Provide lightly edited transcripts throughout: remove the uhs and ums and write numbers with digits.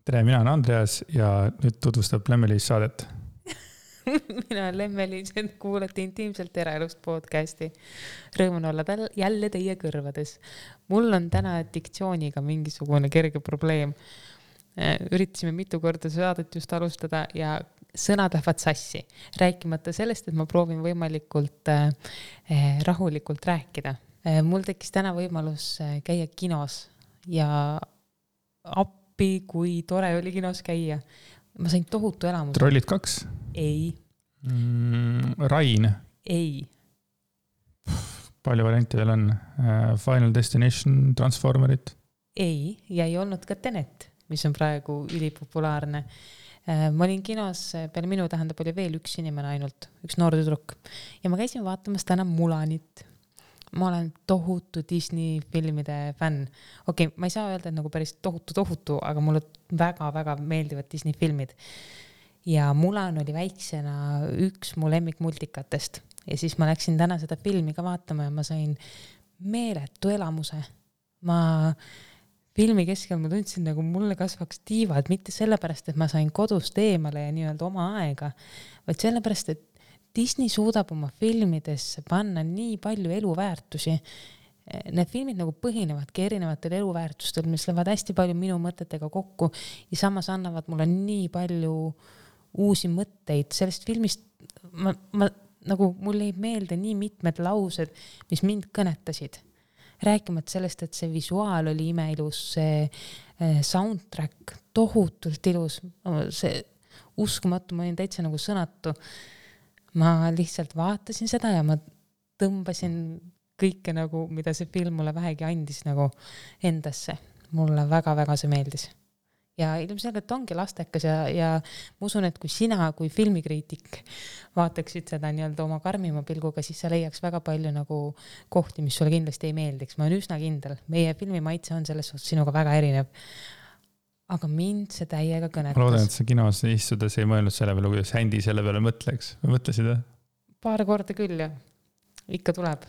Tere, mina olen Andreas ja nüüd tutvustab Lemmelis saadet. Mina olen Lemmelis, et kuulete intiimselt eraelust podcasti. Rõõmun olla jälle teie kõrvades. Mul on täna diktsiooniga mingisugune kerge probleem. Üritasime mitu korda saadet just alustada ja sõnad lähevad sassi. Rääkimata sellest, et ma proovin võimalikult rahulikult rääkida. Mul tekkis täna võimalus käia kinos ja appi, kui tore oli kinos käia. Ma sain tohutu elamuse. Trollid 2? Ei. Rain? Ei. Palju variante veel on? Final Destination, Transformerit? Ei, ja ei olnud ka Tenet, mis on praegu ülipopulaarne. Ma olin kinos, peale minu tähendab oli veel üks inimene ainult, üks noor tüdruk. Ja ma käisin vaatamas täna Mulanit. Ma olen tohutu Disney filmide fänn. Okei, ma ei saa öelda, et nagu päris tohutu, aga mulle väga-väga meeldivad Disney filmid. Ja Mulan oli väiksena üks mu lemmikmultikatest. Ja siis ma läksin täna seda filmi ka vaatama ja ma sain meeletu elamuse. Ma filmi keskel ma tundsin, nagu mulle kasvaks tiivad, mitte sellepärast, et ma sain kodust eemale ja nii-öelda oma aega, vaid sellepärast, et Disney suudab oma filmidesse panna nii palju eluväärtusi. Need filmid nagu põhinevadki erinevatel eluväärtustel, mis lähevad hästi palju minu mõtetega kokku ja samas annavad mulle nii palju uusi mõtteid. Sellest filmist nagu mulle ei meelde nii mitmed laused, mis mind kõnetasid. Rääkimata sellest, et see visuaal oli imeilus, see soundtrack tohutult ilus, see uskumatu, ma olin täitsa nagu sõnatu. Ma lihtsalt vaatasin seda ja ma tõmbasin kõike nagu, mida see film mulle vähegi andis nagu endasse. Mulle väga-väga see meeldis. Ja ilmselgelt ongi lastekas ja ma usun, et kui sina kui filmikriitik vaataksid seda nii-öelda oma karmima pilguga, siis sa leiaks väga palju nagu kohti, mis sulle kindlasti ei meeldiks. Ma olen üsna kindel. Meie filmimaitse on selles suhtes sinuga väga erinev. Aga mind see täiega kõnetas. Ma loodan, et see kinos istudes ei mõelnud selle peale, kuidas händi selle peale mõtleks. Või mõtlesid? Paar korda küll ja ikka tuleb.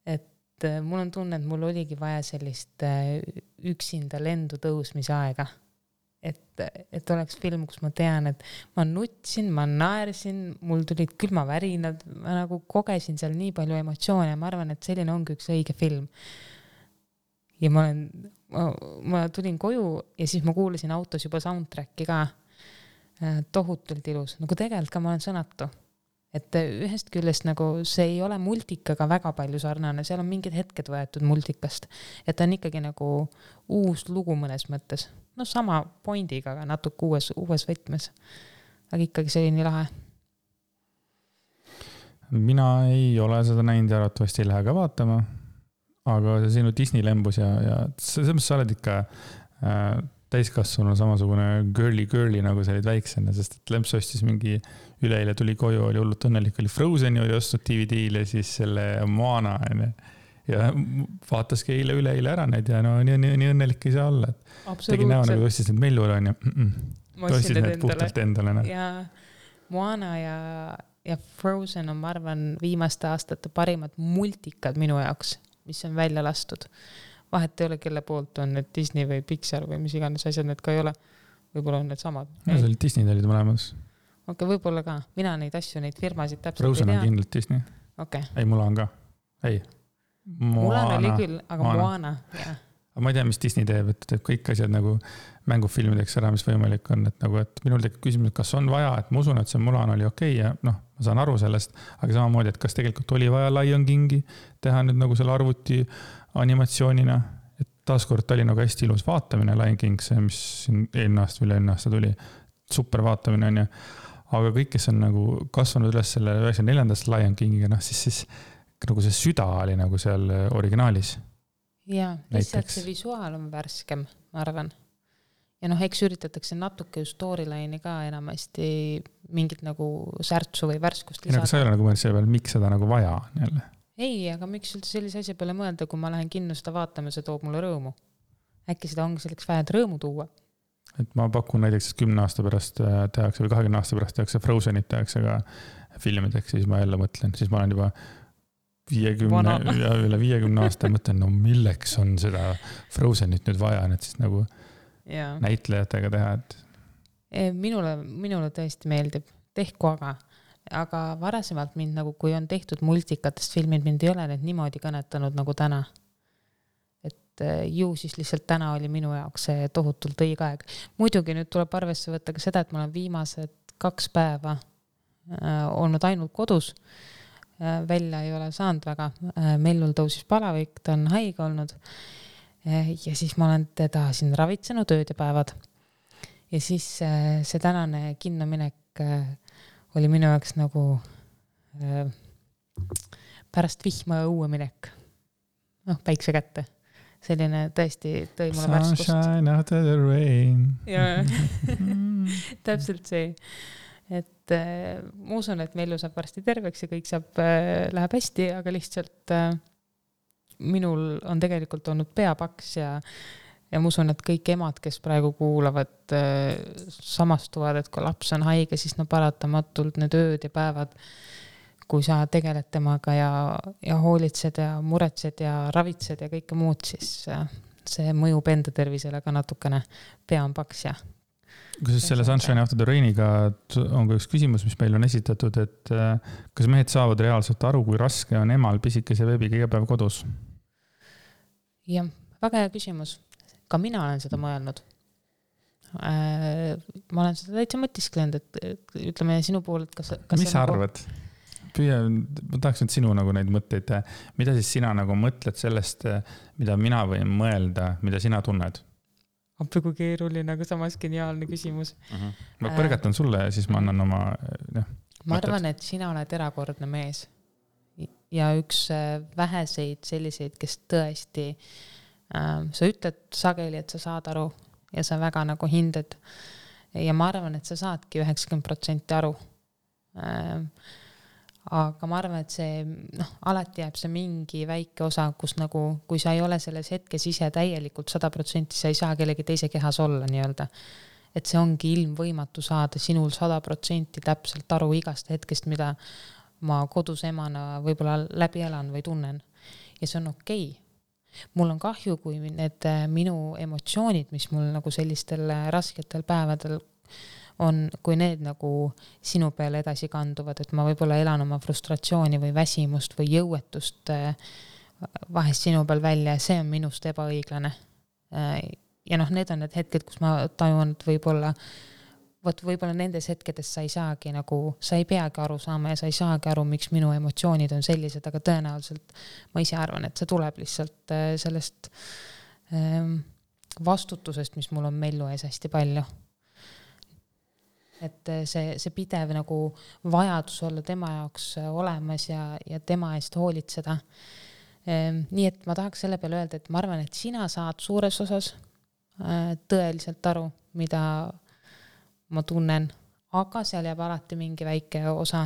Et mul on tunne, et mul oligi vaja sellist üksinda lendu tõusmise aega. Et oleks film, kus ma tean, et ma nutsin, ma naersin, mul tulid külmavärinad, ma nagu kogesin seal nii palju emotsioone ja ma arvan, et selline ongi üks õige film. Ja ma tulin koju ja siis ma kuulasin autos juba soundtracki ka tohutult ilus. Nagu tegelikult ka ma olen sõnatu. Et ühest küljest nagu see ei ole multikaga väga palju sarnane, seal on mingid hetked võetud multikast. Et ta on ikkagi nagu uus lugu mõnes mõttes. No sama pointiga, aga natuke uues võtmes. Aga ikkagi see oli nii lahe. Mina ei ole seda näinud ja arvatavasti ei lähe ka vaatama. Aga see sinu Disney lembus ja selles sa oled ikka täiskasvanu samasugune girly nagu sa olid väiksena, sest et lemps ostis mingi üleile tuli koju, oli hullult õnnelik, oli Frozeni oli ostnud DVD-le siis selle Moana ja vaataski üleile ära need ja no nii õnnelik ei saa olla. Tegin näo nagu ostis need Mellule on ja ostis need puhtalt endale. Ja Moana ja Frozen on, ma arvan, viimaste aastate parimad multikad minu jaoks, mis on välja lastud. Vahet ei ole, kelle poolt on need Disney või Pixar või mis iganes asjad need ka ei ole. Võib-olla on need samad. No see oli Disney olid mõlemas. Okei, võib-olla ka. Mina neid asju, neid firmasid täpselt Frozen ei tea. Frozen on kindlalt Disney. Okay. Ei, Mulan ka. Ei. Mulan oli küll, aga Moana. Aga ma ei tea, mis Disney teeb, et teeb kõik asjad nagu mängufilmideks ära, mis võimalik on. Et nagu, et minul tekib küsimus, kas on vaja, et ma usun, et see Mulan oli okei ja ma saan aru sellest, aga samamoodi, et kas tegelikult oli vaja Lion Kingi teha nüüd nagu selle arvuti animatsioonina, et taaskord oli nagu hästi ilus vaatamine Lion King, see, mis eelmine aasta tuli, super vaatamine on ja, aga kõik, kes on nagu kasvanud üles selle 94. Lion Kingiga, siis nagu see süda oli nagu seal originaalis. Ja, lihtsalt see visuaal on värskem, ma arvan. Ja eks üritatakse natuke ju storyline'i ka enamasti mingit nagu särtsu või värskust lisada. Aga sa ei ole nagu mõelnud selle peale, miks seda nagu vaja on jälle? Ei, aga miks üldse sellise asja peale mõelda, kui ma lähen kinno seda vaatama, see toob mulle rõõmu. Äkki seda ongi selleks vaja rõõmu tuua? Et ma pakun näiteks 10 aasta pärast tehakse või 20 aasta pärast tehakse Frozenit tehakse ka filmideks, siis ma jälle mõtlen, siis ma olen juba 50 ja üle 50 aasta mõtlen, no milleks on seda Frozenit nüüd vaja, et siis nagu näitlejatega teha, et minule tõesti meeldib, tehku aga varasemalt mind nagu, kui on tehtud multikatest filmid, mind ei ole need niimoodi kõnetanud nagu täna. Et ju siis lihtsalt täna oli minu jaoks see tohutult õige aeg. Muidugi nüüd tuleb arvesse võtta ka seda, et ma olen viimased 2 päeva olnud ainult kodus, välja ei ole saanud väga, Mellul tõusis palavik, ta on haige olnud ja siis ma olen teda siin ravitsenud ööd ja päevad. Ja siis see tänane kinnominek oli minu jaoks nagu pärast vihma ja õue minek. Päikse kätte. Selline tõesti tõi mulle värskust. Sunshine after the rain. Ja, täpselt see. Et ma usun, et Mellu saab varsti terveks ja kõik läheb hästi, aga lihtsalt minul on tegelikult olnud peapaks ja ma usun, et kõik emad, kes praegu kuulavad, samastuvad, et kui laps on haige, siis paratamatult need ööd ja päevad, kui sa tegeled temaga ja hoolitsed ja muretsed ja ravitsed ja kõike muud, siis see mõjub enda tervisele ka natukene, pea on paks ja. Kus selle Sunshine After the Rainiga on ka üks küsimus, mis meil on esitatud, et kas mehed saavad reaalselt aru, kui raske on emal pisikese beebiga iga päev kodus? Jah, väga hea küsimus. Ka mina olen seda mõelnud. Ma olen seda täitsa mõtisklenud, et ütleme sinu pool, et kas mis sa arvad? Ma tahaks nüüd sinu nagu neid mõtteid, mida siis sina nagu mõtled sellest, mida mina võin mõelda, mida sina tunned? Appi kui keeruline, aga samas geniaalne küsimus. Ma põrgatan sulle ja siis ma annan oma ma arvan, et sina oled erakordne mees ja üks väheseid selliseid, kes tõesti sa ütled sageli, et sa saad aru ja sa väga nagu hinded ja ma arvan, et sa saadki 90% aru. Aga ma arvan, et see alati jääb see mingi väike osa, kus nagu, kui sa ei ole selles hetkes ise täielikult 100%, sa ei saa kellegi teise kehas olla nii-öelda. Et see ongi ilmvõimatu saada sinul 100% täpselt aru igast hetkest, mida ma kodus emana võib-olla läbi elan või tunnen. Ja see on okei. Mul on kahju, kui need minu emotsioonid, mis mul nagu sellistel rasketel päevadel on, kui need nagu sinu peale edasi kanduvad, et ma võib-olla elan oma frustratsiooni või väsimust või jõuetust vahest sinu peal välja ja see on minust ebaõiglane. Ja need on need hetked, kus ma tajun, et võib-olla nendes hetkedes sa ei saagi nagu, sa ei peagi aru saama ja sa ei saagi aru, miks minu emotsioonid on sellised, aga tõenäoliselt ma ise arvan, et see tuleb lihtsalt sellest vastutusest, mis mul on Mellu ees hästi palju. Et see pidev nagu vajadus olla tema jaoks olemas ja tema eest hoolitseda. Nii et ma tahaks selle peale öelda, et ma arvan, et sina saad suures osas tõeliselt aru, mida ma tunnen, aga seal jääb alati mingi väike osa,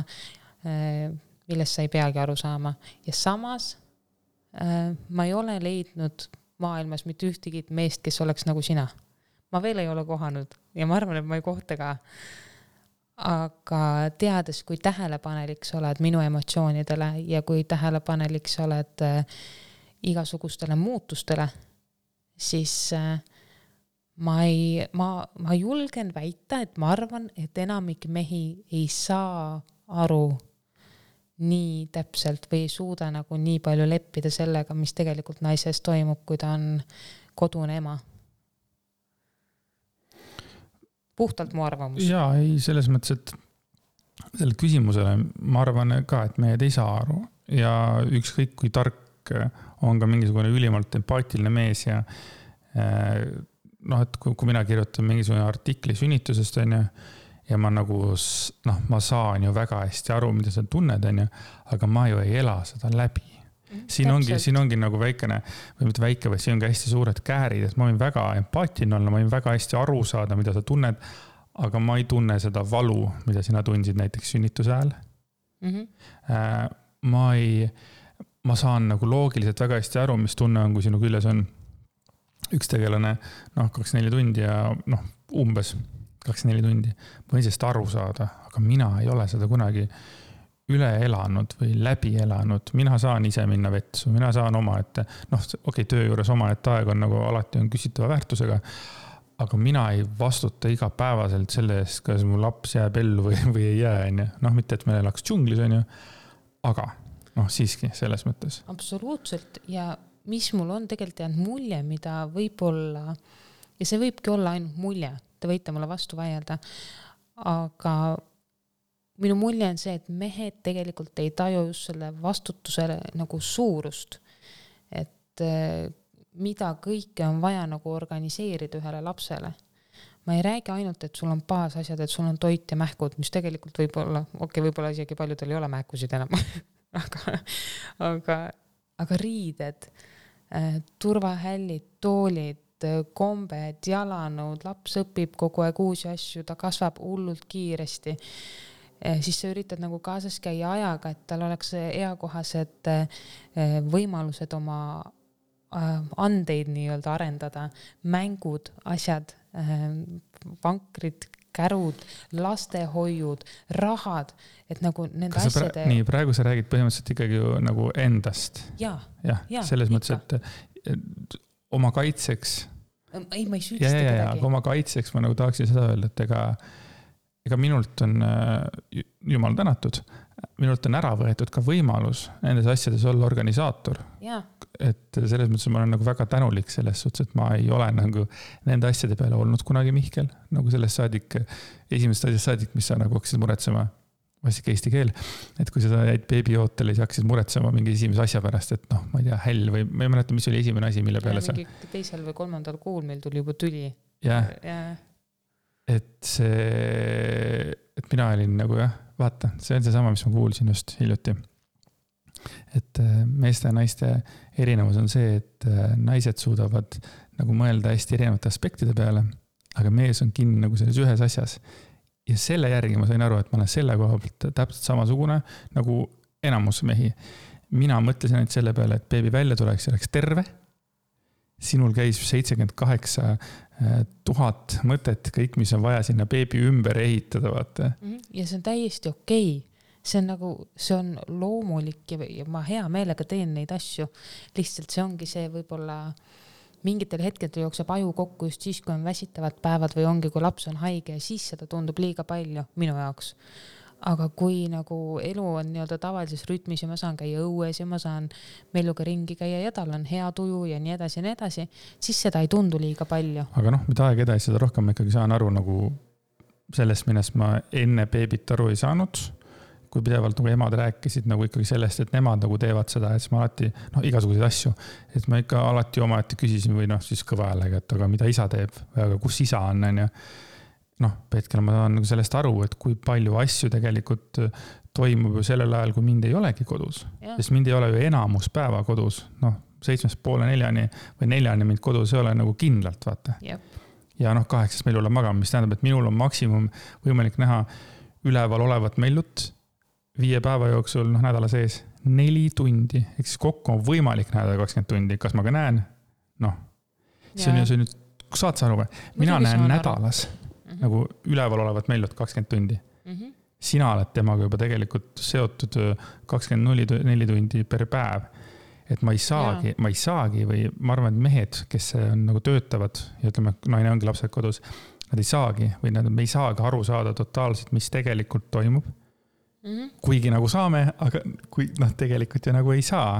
millest sa ei peagi aru saama. Ja samas ma ei ole leidnud maailmas mitte ühtegi meest, kes oleks nagu sina. Ma veel ei ole kohanud ja ma arvan, et ma ei kohta ka. Aga teades, kui tähelepanelik sa oled minu emotsioonidele ja kui tähelepanelik sa oled igasugustele muutustele, siis ma julgen väita, et ma arvan, et enamik mehi ei saa aru nii täpselt või ei suuda nagu nii palju leppida sellega, mis tegelikult naises toimub, kui ta on kodune ema. Puhtalt mu arvamus. Jaa, ei, selles mõttes, et selle küsimusele ma arvan ka, et mehed ei saa aru ja ükskõik kui tark on ka mingisugune ülimalt empaatiline mees ja et kui mina kirjutan mingisugune artikli sünnitusest ja ma nagu, ma saan ju väga hästi aru, mida sa tunned, aga ma ju ei ela seda läbi. Siin ongi nagu väikene, või mitte väike, või siin ongi hästi suured käärid, et ma võin väga empaatiline olla, ma võin väga hästi aru saada, mida sa tunned, aga ma ei tunne seda valu, mida sina tundsid näiteks sünnituse ajal. Ma saan nagu loogiliselt väga hästi aru, mis tunne on, kui sinu küljes on üks tegelane 24 tundi ja umbes 24 tundi. Ma võin sellest aru saada, aga mina ei ole seda kunagi üle elanud või läbi elanud. Mina saan ise minna vetsu, mina saan oma, et töö juures oma, et aeg on nagu alati on küsitava väärtusega, aga mina ei vastuta igapäevaselt selle eest, kas mu laps jääb ellu või ei jää, on ju. Noh, mitte, et me elaks džunglis, on ju, aga noh, siiski selles mõttes. Absoluutselt ja mis mul on tegelikult jäänud mulje, mida võib-olla, ja see võibki olla ainult mulje, te võite mulle vastu vaielda, aga minu mulje on see, et mehed tegelikult ei taju just selle vastutusele nagu suurust, et mida kõike on vaja nagu organiseerida ühele lapsele. Ma ei räägi ainult, et sul on baasasjad, et sul on toit ja mähkud, mis tegelikult võib-olla isegi paljudel ei ole mähkusid enam, aga riided, turvahällid, toolid, kombed, jalanõud, laps õpib kogu aeg uusi asju, ta kasvab hullult kiiresti. Siis sa üritad nagu kaasas käia ajaga, et tal oleks eakohased võimalused oma andeid nii-öelda arendada, mängud, asjad, vankrid, kärud, lastehoiud, rahad, et nagu nende asjade... Nii, praegu sa räägid põhimõtteliselt ikkagi ju nagu endast. Ja, selles mõttes, et oma kaitseks... Ei, ma ei süüdista kedagi. Aga oma kaitseks ma nagu tahaksin seda öelda, et ega minult on, jumal tänatud, minult on ära võetud ka võimalus nendes asjades olla organisaator. Ja. Et selles mõttes ma olen nagu väga tänulik selles suhtes, et ma ei ole nagu nende asjade peale olnud kunagi Mihkel, nagu sellest saadik, esimesest asjast saadik, mis sa nagu hakkasid muretsema, vastik eesti keel, et kui sa jäid beebiootele, siis hakkasid muretsema mingi esimese asja pärast, et noh, ma ei tea, häll või ma ei mäleta, mis oli esimene asi, mille peale sa... Mingi teisel või 3. kuul meil tuli juba tüli. Ja. Et mina olin nagu vaata, see on see sama, mis ma kuulsin just hiljuti. Et meeste ja naiste erinevus on see, et naised suudavad nagu mõelda hästi erinevate aspektide peale, aga mees on kinni nagu selles ühes asjas. Ja selle järgi ma sain aru, et ma olen selle koha pealt täpselt samasugune nagu enamus mehi. Mina mõtlesin ainult selle peale, et beebi välja tuleks ja oleks terve. Sinul käis 78 000 mõtet, kõik, mis on vaja sinna beebi ümber ehitada, vaata. Ja see on täiesti okei. See on nagu, see on loomulik ja ma hea meelega teen neid asju. Lihtsalt see ongi see võib-olla mingitel hetkedel jookseb aju kokku just siis, kui on väsitavad päevad või ongi, kui laps on haige ja siis seda tundub liiga palju minu jaoks. Aga kui nagu elu on nii-öelda tavalises rütmis ja ma saan käia õues ja ma saan meeluga ringi käia ja tal on hea tuju ja nii edasi, siis seda ei tundu liiga palju. Aga noh, mida aeg edasi, seda rohkem ma ikkagi saan aru nagu sellest, millest ma enne beebit aru ei saanud, kui pidevalt nagu emad rääkisid nagu ikkagi sellest, et nemad nagu teevad seda, et ma alati, igasuguseid asju, et ma ikka alati omaette küsisin või siis kõva häälega, et aga mida isa teeb, aga kus isa on, ja hetkel ma saan nagu sellest aru, et kui palju asju tegelikult toimub ju sellel ajal, kui mind ei olegi kodus, sest mind ei ole ju enamus päeva kodus, 7:30 või 4 mind kodus ei ole nagu kindlalt, vaata. Yep. Ja 8 meil olla magama, mis tähendab, et minul on maksimum võimalik näha üleval olevat mellut 5 päeva jooksul, nädala sees 4 tundi, ehk siis kokku on võimalik näha 20 tundi, kas ma ka näen? See on ju, saad sa aru või? Mina näen nädalas nagu üleval olevat mellut 20 tundi. Sina oled temaga juba tegelikult seotud 24 tundi per päev. Et ma ei saagi või ma arvan, et mehed, kes on nagu töötavad ja ütleme, naine ongi lapsed kodus, nad ei saagi või me ei saagi aru saada totaalselt, mis tegelikult toimub. Kuigi nagu saame, aga kui tegelikult ju nagu ei saa.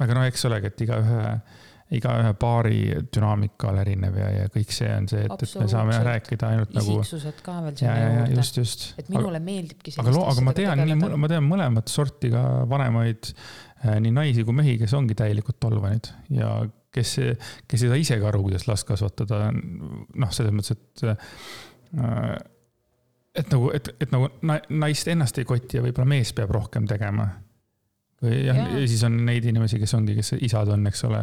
Aga eks olegi, et igaühe paari dünaamika on erinev ja kõik see on see, et me saame rääkida ainult nagu... Isiksused ka veel selle juurde. Just. Et minule meeldibki aga ma tean mõlemat sorti ka vanemaid nii naisi kui mehi, kes ongi täielikult tolvanid ja kes ei saa ise ka aru, kuidas last kasvatada. Selles mõttes, et nagu naist ennast ei koti ja võib-olla mees peab rohkem tegema. Ja siis on neid inimesi, kes isad on, eks ole,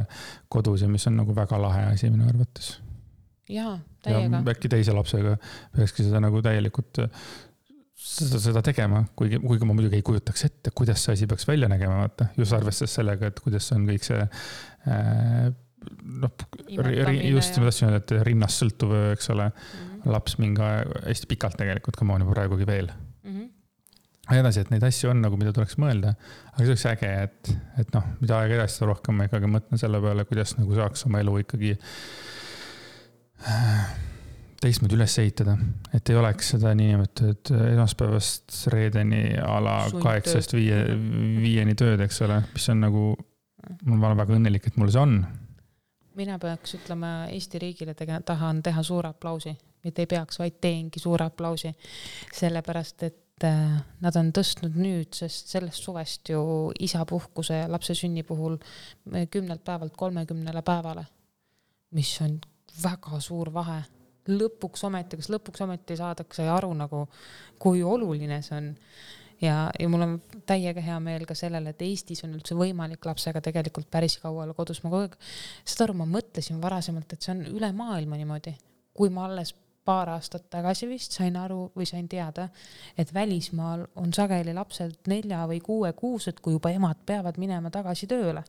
kodus ja mis on nagu väga lahe asi minu arvates. Jaa, täiega. Ja äkki teise lapsega peakski seda nagu täielikult seda tegema, kuigi ma muidugi ei kujutaks ette, kuidas see asi peaks välja nägema, vaata. Just arvestades sellega, et kuidas on kõik see just ma tahtsin öelda, et rinnast sõltuv, eks ole, laps mingi hästi pikalt tegelikult, kui ma olen juba praegugi veel. edasi, et neid asju on nagu, mida tuleks mõelda, aga see oleks äge, et noh, mida aega edasi, seda rohkem ma ikkagi mõtlen selle peale, kuidas nagu saaks oma elu ikkagi teistmoodi üles ehitada, et ei oleks seda niinimetatud esmaspäevast reedeni ala 8-5 tööd, eks ole, mis on nagu, ma olen väga õnnelik, et mul see on. Mina peaks ütlema Eesti riigile tahan teha suure aplausi, mitte ei peaks, vaid teengi suure aplausi, sellepärast, et nad on tõstnud nüüd, sest sellest suvest ju isapuhkuse lapse sünni puhul 10 päevalt 30 päevale, mis on väga suur vahe. Lõpuks ometi saadakse aru nagu, kui oluline see on. Ja mul on täiega hea meel ka sellele, et Eestis on üldse võimalik lapsega tegelikult päris kaua olla kodus. Seda aru ma mõtlesin varasemalt, et see on üle maailma niimoodi. Kui ma alles paar aastat tagasi vist sain aru või sain teada, et välismaal on sageli lapsed 4 või 6 kuused, kui juba emad peavad minema tagasi tööle.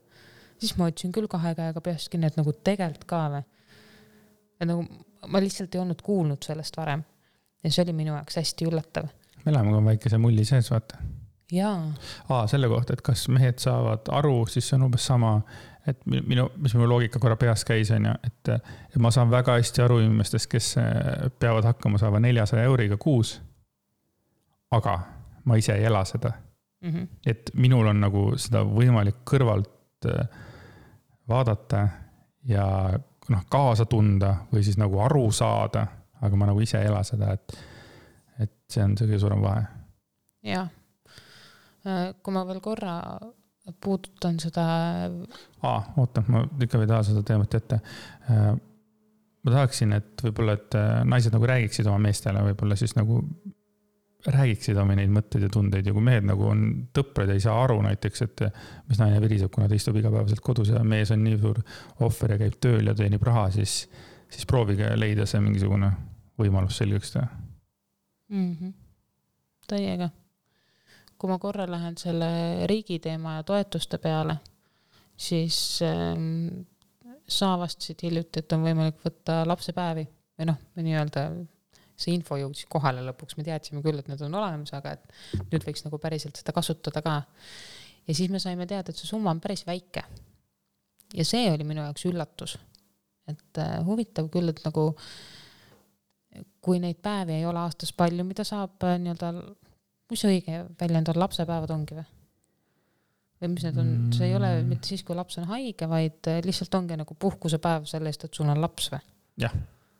Siis ma ütlesin küll 2 käega peast kinni, et nagu tegelt ka või. Ja nagu ma lihtsalt ei olnud kuulnud sellest varem. Ja see oli minu jaoks hästi üllatav. Me läheme ka väikese mulli sees, vaata. Jaa. Selle kohta, et kas mehed saavad aru, siis see on umbes sama, et mis minu loogika korra peas käis, on ju, et ma saan väga hästi aru inimestest, kes peavad hakkama saama 400 euriga kuus, aga ma ise ei ela seda. Et minul on nagu seda võimalik kõrvalt vaadata ja kaasa tunda või siis nagu aru saada, aga ma nagu ise ei ela seda, et see on see kõige suurem vahe. Jah. Kui ma veel korra puudutan seda... Oota, ma ikka ei taha seda teemat ette. Ma tahaksin, et võib-olla, et naised nagu räägiksid oma meestele, võib-olla siis nagu räägiksid oma neid mõtteid ja tundeid ja kui mehed nagu on tõprad ja ei saa aru näiteks, et mis naine viriseb, kuna ta istub igapäevaselt kodus ja mees on nii suur ohver ja käib tööl ja teenib raha, siis proovige leida see mingisugune võimalus selgeks teha. Täiega. Kui ma korra lähen selle riigi teema ja toetuste peale, siis sa vastasid hiljuti, et on võimalik võtta lapsepäevi või nii öelda see info jõudis kohale lõpuks, me teadsime küll, et need on olemas, aga et nüüd võiks nagu päriselt seda kasutada ka. Ja siis me saime teada, et see summa on päris väike. Ja see oli minu jaoks üllatus. Et huvitav küll, et nagu kui neid päevi ei ole aastas palju, mida saab nii-öelda, mis õige väljend on, lapsepäevad ongi või? Või mis need on, see ei ole mitte siis, kui laps on haige, vaid lihtsalt ongi nagu puhkusepäev selle eest, et sul on laps või? Jah.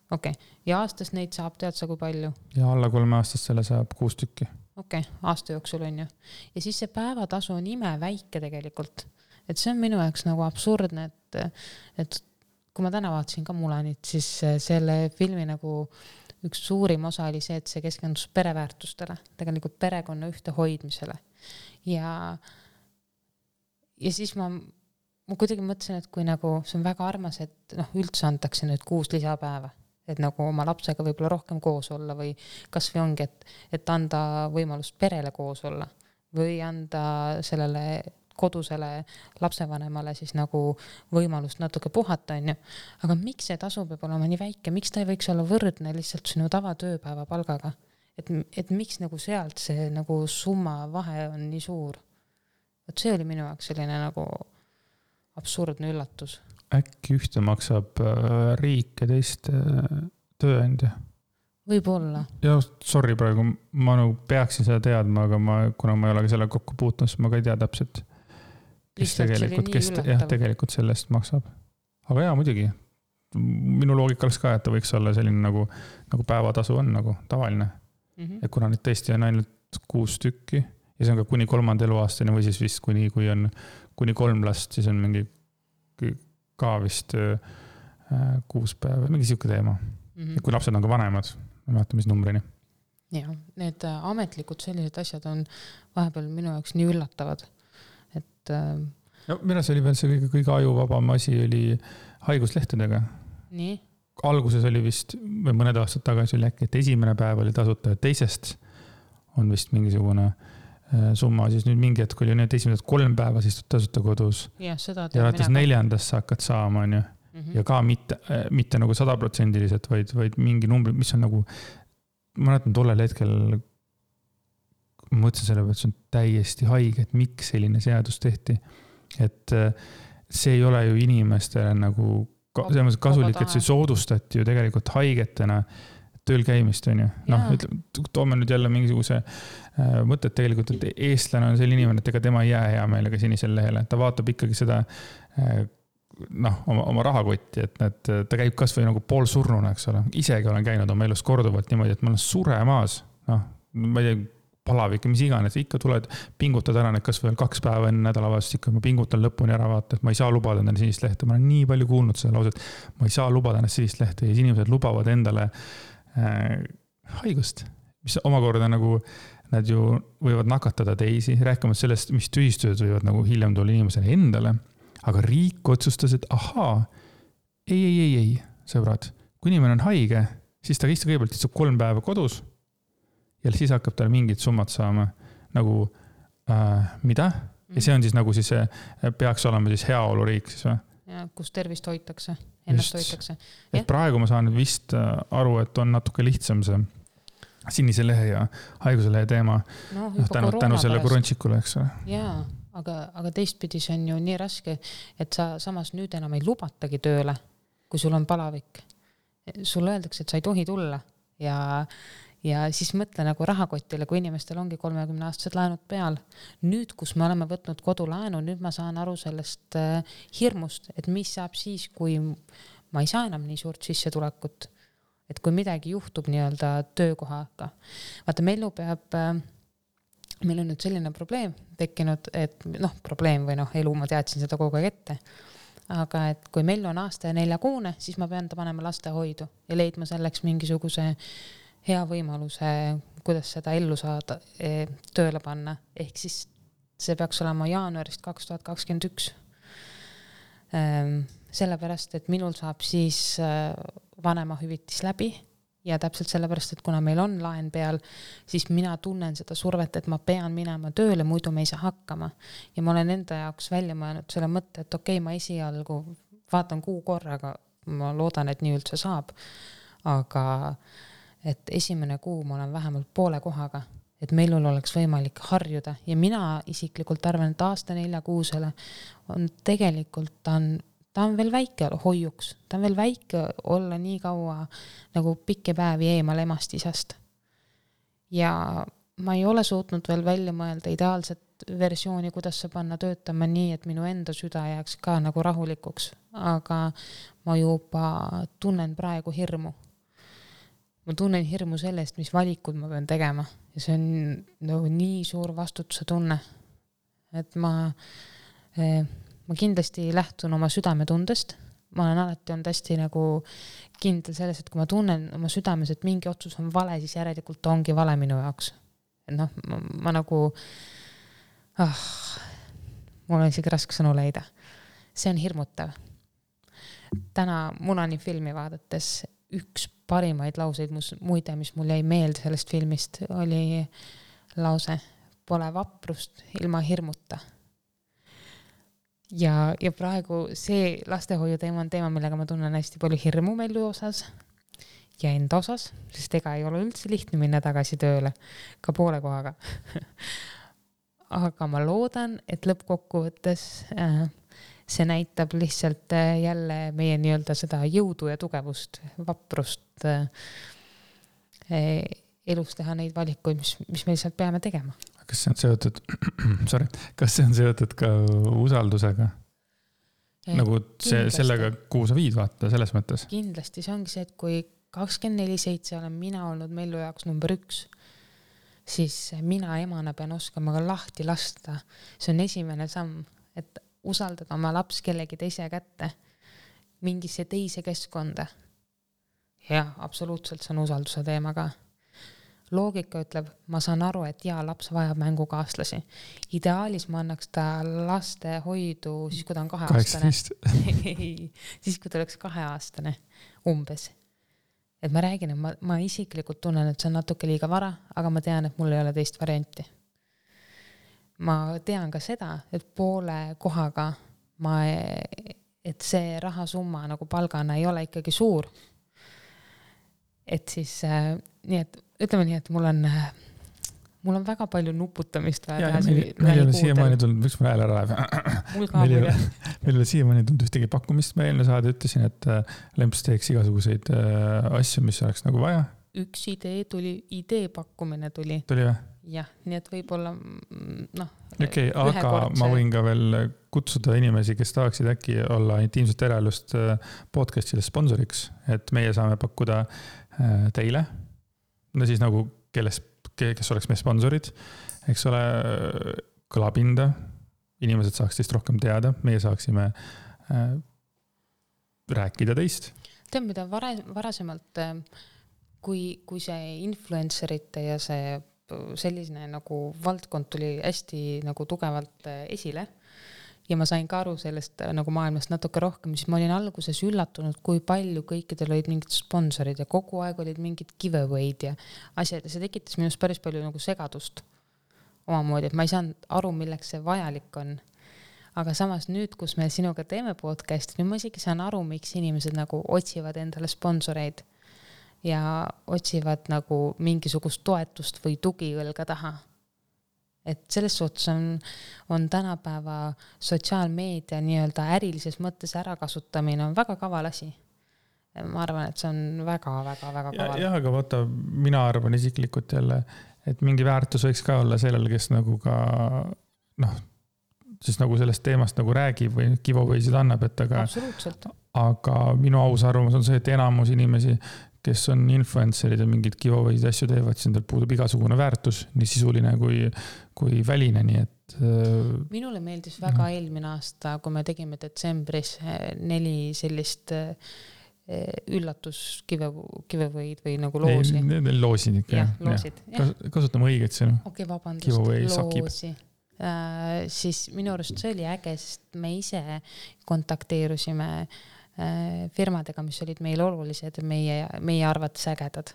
Okei. Ja aastas neid saab, tead sa kui palju? Ja alla 3 aastast selle saab 6 tükki. Okei, aasta jooksul on ju. Ja siis see päevatasu on ime väike tegelikult. Et see on minu jaoks nagu absurdne, et kui ma täna vaatasin ka Mulanit, siis selle filmi nagu üks suurim osa oli see, et see keskendus pereväärtustele, tegelikult perekonna ühte hoidmisele. Ja siis ma kuidagi mõtlesin, et kui nagu see on väga armas, et üldse antakse nüüd 6 lisapäeva. Et nagu oma lapsega võib-olla rohkem koos olla või kas või ongi, et anda võimalust perele koos olla või anda sellele kodusele lapsevanemale siis nagu võimalust natuke puhata, on ju. Aga miks see tasu peab olema nii väike? Miks ta ei võiks olla võrdne lihtsalt sinu tavatööpäeva palgaga? Et miks nagu sealt see nagu summa vahe on nii suur? Et see oli minu jaoks selline nagu absurdne üllatus. Äkki ühte maksab riik ja teist tööandja? Võib-olla. Ja sorry praegu, ma nagu peaksin seda teadma, aga kuna ma ei ole selle kokku puutnud, siis ma ka ei tea täpselt, kes tegelikult sellest maksab. Aga jaa, muidugi. Minu loogika oleks ka, et ta võiks olla selline nagu päevatasu on nagu tavaline. Ja kuna nüüd tõesti on ainult 6 tükki ja see on ka kuni 3. eluaastani või siis vist kui on kuni 3 last, siis on mingi ka vist 6 päeva, mingi siuke teema. Ja kui lapsed on ka vanemad, ma vaatan, mis numbrini. Ja, need ametlikud sellised asjad on vahepeal minu jaoks nii üllatavad. Et... minu see oli veel see kõige ajuvabam asi oli haiguslehtedega. Nii? Alguses oli vist, või mõned aastad tagasi oli äkki, et esimene päev oli tasuta ja teisest on vist mingisugune summa, siis nüüd mingi hetk oli need esimesed 3 päeva siis tasuta kodus. Ja, seda ja alates 4. sa hakkad saama, on ju. Ja ka mitte nagu 100%-liselt, vaid mingi numbri, mis on nagu, ma näitan tollel hetkel ma mõtlesin selle peale, et see on täiesti haige, et miks selline seadus tehti. Et see ei ole ju inimestele nagu kasulik, et see soodustati ju tegelikult haigetena tööl käimist, on ju. Noh, toome nüüd jälle mingisuguse mõtet tegelikult, et eestlane on selline inimene, et ega tema ei jää hea meelega sinisel lehele. Ta vaatab ikkagi seda oma rahakotti, et ta käib kas või nagu poolsurnuna, eks ole. Isegi olen käinud oma elus korduvalt niimoodi, et ma olen suremaas. Ma ei tea, palavik, mis iganes, ikka tuled, pingutad ära need kas veel 2 päeva enne nädalavast, ikka ma pingutan lõpuni ära vaata, et ma ei saa lubada endale sinist lehte. Ma olen nii palju kuulnud seda lauset, ma ei saa lubada ennast sinist lehte ja inimesed lubavad endale haigust, mis omakorda nagu nad ju võivad nakatada teisi, rääkimata sellest, mis tühistused võivad nagu hiljem tulla inimesele endale, aga riik otsustas, et ahaa, ei, sõbrad, kui inimene on haige, siis ta kõigepealt istub 3 päeva kodus ja siis hakkab tal mingid summad saama nagu mida? Ja see on siis nagu siis peaks olema siis heaoluriik siis või? Ja, kus tervist hoitakse, ennast hoitakse. Et praegu ma saan vist aru, et on natuke lihtsam see sinise lehe ja haiguse lehe teema tänu selle korončikule, eks ole. Jaa, aga teistpidi see on ju nii raske, et sa samas nüüd enam ei lubatagi tööle, kui sul on palavik. Sul öeldakse, et sa ei tohi tulla ja siis mõtle nagu rahakotile, kui inimestel ongi 30-aastased laenud peal. Nüüd, kus me oleme võtnud kodulaenu, nüüd ma saan aru sellest hirmust, et mis saab siis, kui ma ei saa enam nii suurt sissetulekut. Et kui midagi juhtub nii-öelda töökohaga. Vaata, meil on nüüd selline probleem tekkinud, et probleem või elu, ma teadsin seda kogu aeg ette. Aga et kui meil on aasta ja 4 kuune, siis ma pean ta panema lastehoidu ja leidma selleks mingisuguse hea võimaluse, kuidas seda ellu saada, tööle panna. Ehk siis see peaks olema jaanuarist 2021. Sellepärast, et minul saab siis vanemahüvitis läbi ja täpselt sellepärast, et kuna meil on laen peal, siis mina tunnen seda survet, et ma pean minema tööle, muidu me ei saa hakkama. Ja ma olen enda jaoks välja mõelnud selle mõtte, et okei, ma esialgu vaatan 6 korraga, ma loodan, et nii üldse saab, aga et esimene kuu ma olen vähemalt poole kohaga, et meil oleks võimalik harjuda ja mina isiklikult arvan, et aasta 4 kuusele on tegelikult ta on veel väike hoiuks, ta on veel väike olla nii kaua nagu pikki päevi eemal emast isast. Ja ma ei ole suutnud veel välja mõelda ideaalset versiooni, kuidas see panna töötama nii, et minu enda süda jääks ka nagu rahulikuks, aga ma juba tunnen praegu hirmu. Ma tunnen hirmu sellest, mis valikud ma pean tegema ja see on nii suur vastutuse tunne, et ma kindlasti lähtun oma südametundest. Ma olen alati olnud hästi nagu kindel selles, et kui ma tunnen oma südames, et mingi otsus on vale, siis järelikult ongi vale minu jaoks. Ma nagu mul on isegi raske sõnu leida. See on hirmutav. Täna Mulani filmi vaadates üks parimaid lauseid muide, mis mul jäi meelde sellest filmist, oli lause, pole vaprust ilma hirmuta. Ja praegu see lastehoiu teema on teema, millega ma tunnen hästi palju hirmu melu osas ja enda osas, sest ega ei ole üldse lihtne minna tagasi tööle, ka poole kohaga. Aga ma loodan, et lõppkokkuvõttes see näitab lihtsalt jälle meie nii-öelda seda jõudu ja tugevust, vaprust elus teha neid valikuid, mis me lihtsalt peame tegema. Kas see on seotud, kas see on seotud ka usaldusega? Nagu sellega, kuhu sa viid vaata selles mõttes? Kindlasti, see ongi see, et kui 24/7 olen mina olnud Mellu jaoks number 1, siis mina emana pean oskama ka lahti lasta. See on esimene samm, et usaldada oma laps kellegi teise kätte mingisse teise keskkonda. Ja absoluutselt see on usalduse teema ka. Loogika ütleb, ma saan aru, et laps vajab mängukaaslasi. Ideaalis ma annaks ta laste hoidu siis, kui ta on 2-aastane. Siis, kui ta oleks 2-aastane umbes. Et ma räägin, et ma isiklikult tunnen, et see on natuke liiga vara, aga ma tean, et mul ei ole teist varianti. Ma tean ka seda, et poole kohaga et see rahasumma nagu palgana ei ole ikkagi suur. Et siis nii, et ütleme nii, et mul on mul on väga palju nuputamist vaja teha. Meil ei ole siiamaani tulnud, võiks mul hääl ära läheb. Meil ei ole siiamaani tulnud ühtegi pakkumist. Ma eelmine saade ütlesin, et Lemps teeks igasuguseid asju, mis oleks nagu vaja. Üks idee pakkumine tuli. Tuli või? Jah, nii et võib-olla Okei, aga ma võin ka veel kutsuda inimesi, kes tahaksid äkki olla intiimset eraelust podcastile sponsoriks, et meie saame pakkuda teile, no siis nagu kes oleks meie sponsorid, eks ole, kõlapinda, inimesed saaks teist rohkem teada, meie saaksime rääkida teist. Tead, mida varasemalt, kui see influencerite ja see selline nagu valdkond tuli hästi nagu tugevalt esile ja ma sain ka aru sellest nagu maailmast natuke rohkem, siis ma olin alguses üllatunud, kui palju kõikidel olid mingid sponsorid ja kogu aeg olid mingid giveaway'd ja asjad ja see tekitas minust päris palju nagu segadust omamoodi, et ma ei saanud aru, milleks see vajalik on. Aga samas nüüd, kus me sinuga teeme podcasti, nüüd ma isegi saan aru, miks inimesed nagu otsivad endale sponsoreid ja otsivad nagu mingisugust toetust või tugiõlga taha. Et selles suhtes on tänapäeva sotsiaalmeedia nii-öelda ärilises mõttes ärakasutamine on väga kaval asi. Ma arvan, et see on väga kaval. Jah, aga vaata, mina arvan isiklikult jälle, et mingi väärtus võiks ka olla sellel, kes nagu ka siis nagu sellest teemast nagu räägib või giveaway'sid annab, et aga minu aus arvamus on see, et enamus inimesi, kes on influencerid ja mingid giveaway'id asju teevad, siis endal puudub igasugune väärtus, nii sisuline kui väline, nii et minule meeldis väga eelmine aasta, kui me tegime detsembris 4 sellist üllatus giveaway'd või nagu loosi. Loosid ikka. Jah, loosid. Kasutame õiget sõnu. Okei, vabandust, loosi. Siis minu arust see oli äge, sest me ise kontakteerusime firmadega, mis olid meil olulised ja meie arvates ägedad.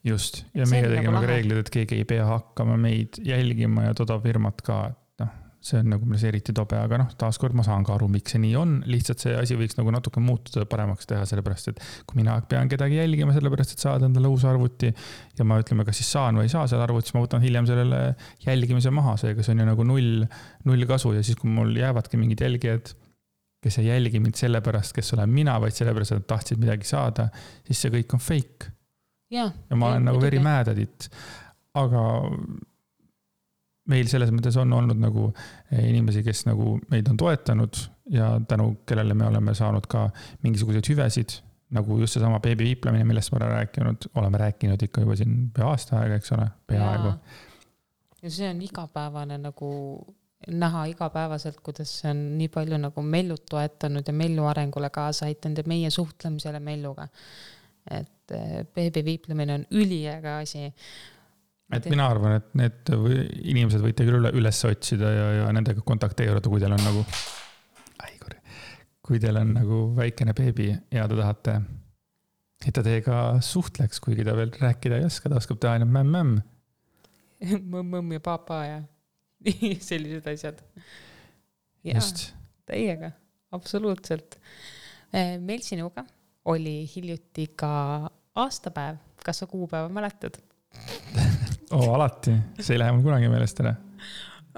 Just, ja meie tegime ka reeglid, et keegi ei pea hakkama meid jälgima ja toda firmat ka, et see on nagu meil eriti tobe, aga taaskord ma saan ka aru, miks see nii on, lihtsalt see asi võiks nagu natuke muutuda paremaks teha, sellepärast, et kui mina pean kedagi jälgima, sellepärast, et saada endale uus arvuti ja ma ütleme, kas siis saan või ei saa selle arvuti, siis ma võtan hiljem sellele jälgimise maha, seega see on ju nagu null kasu ja siis, kui mul jäävadki mingid jälgijad, kes ei jälgi mind sellepärast, kes olen mina, vaid sellepärast, et tahtsid midagi saada, siis see kõik on fake. Ja ma olen nagu very mad at it. Aga meil selles mõttes on olnud nagu inimesi, kes nagu meid on toetanud ja tänu kellele me oleme saanud ka mingisuguseid hüvesid, nagu just see sama beebiviiplemine, millest ma oleme rääkinud ikka juba siin pea aasta aega, eks ole, peaaegu. Ja see on igapäevane nagu näha igapäevaselt, kuidas see on nii palju nagu Mellut toetanud ja Mellu arengule kaasa aitanud ja meie suhtlemisele Melluga. Et beebiviiplemine on üliäge asi. Et mina arvan, et need inimesed võite küll üles otsida ja nendega kontakteeruda, kui teil on nagu kui teil on nagu väikene beebi ja te tahate, et ta teiega suhtleks, kuigi ta veel rääkida ei oska, ta oskab teha ainult mämm. Mõmm ja papa ja sellised asjad. Just. Teiega, absoluutselt. Meil sinuga oli hiljuti ka aastapäev. Kas sa kuupäeva mäletad? Alati. See ei lähe mul kunagi meelest ära.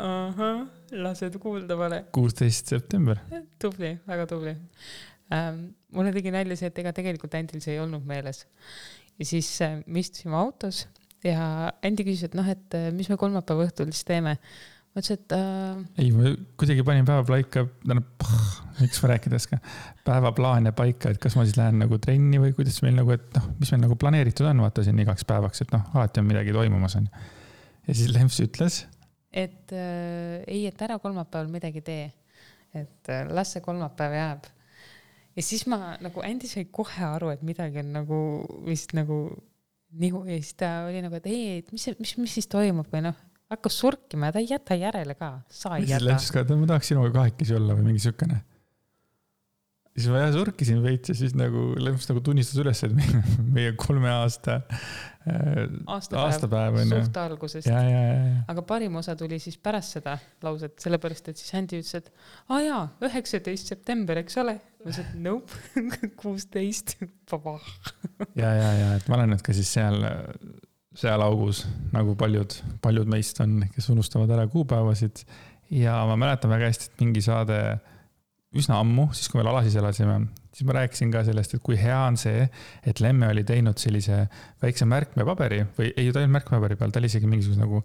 Aha, lased kuulda vale. 16. september. Tubli, väga tubli. Mulle tegi nalja see, et ega tegelikult Andil see ei olnud meeles. Ja siis me istusime autos ja Andi küsis, et mis me kolmapäeva õhtul siis teeme. Ma ütlesin, et ei, ma kuidagi panin päevaplaika, miks ma rääkides ka, päevaplaane paika, et kas ma siis lähen nagu trenni või kuidas meil nagu, et mis meil nagu planeeritud on, vaata siin igaks päevaks, et alati on midagi toimumas on. Ja siis Lemps ütles, et ei, et ära kolmapäeval midagi tee, et las see kolmapäev jääb. Ja siis ma nagu Andi sai kohe aru, et midagi on nagu vist nagu nihu ja siis ta oli nagu, et ei, mis siis toimub või hakkas surkima ja ta ei jäta järele ka. Sa ei jäta. Ma tahaks sinuga kahekesi olla või mingi sükene. Siis ma surkisin veits ja siis nagu Lemps nagu tunnistas üles, et meie 3 aasta aastapäev on suht algusest. Ja. Aga parim osa tuli siis pärast seda lauset, sellepärast, et siis Andi ütles, et 19. september, eks ole? Ma ütlesin, et nope, 16. Paba. Ja, et ma olen nüüd ka siis seal seal augus, nagu paljud meist on, kes unustavad ära kuupäevasid. Ja ma mäletan väga hästi, et mingi saade üsna ammu, siis kui veel Alasis elasime, siis ma rääkisin ka sellest, et kui hea on see, et Lemme oli teinud sellise väikse märkmepaberi või ei, ta ei olnud märkmepaberi peal, ta oli isegi mingisuguse nagu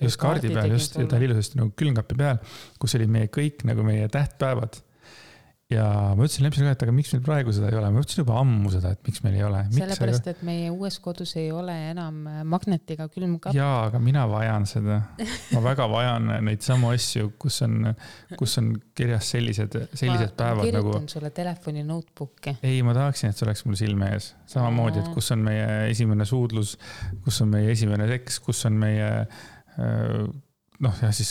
just kaardi peal, just, ta oli ilusasti nagu külmkapi peal, kus oli meie kõik nagu meie tähtpäevad. Ja ma ütlesin Lempsile ka, et aga miks meil praegu seda ei ole? Ma ütlesin juba ammu seda, et miks meil ei ole. Sellepärast, et meie uues kodus ei ole enam magnetiga külmkapp. Jaa, aga mina vajan seda. Ma väga vajan neid samu asju, kus on kirjas sellised päevad. Ma kirjutan sulle telefoni notebooki. Ei, ma tahaksin, et see oleks mul silme ees. Samamoodi, et kus on meie esimene suudlus, kus on meie esimene seks, kus on meie siis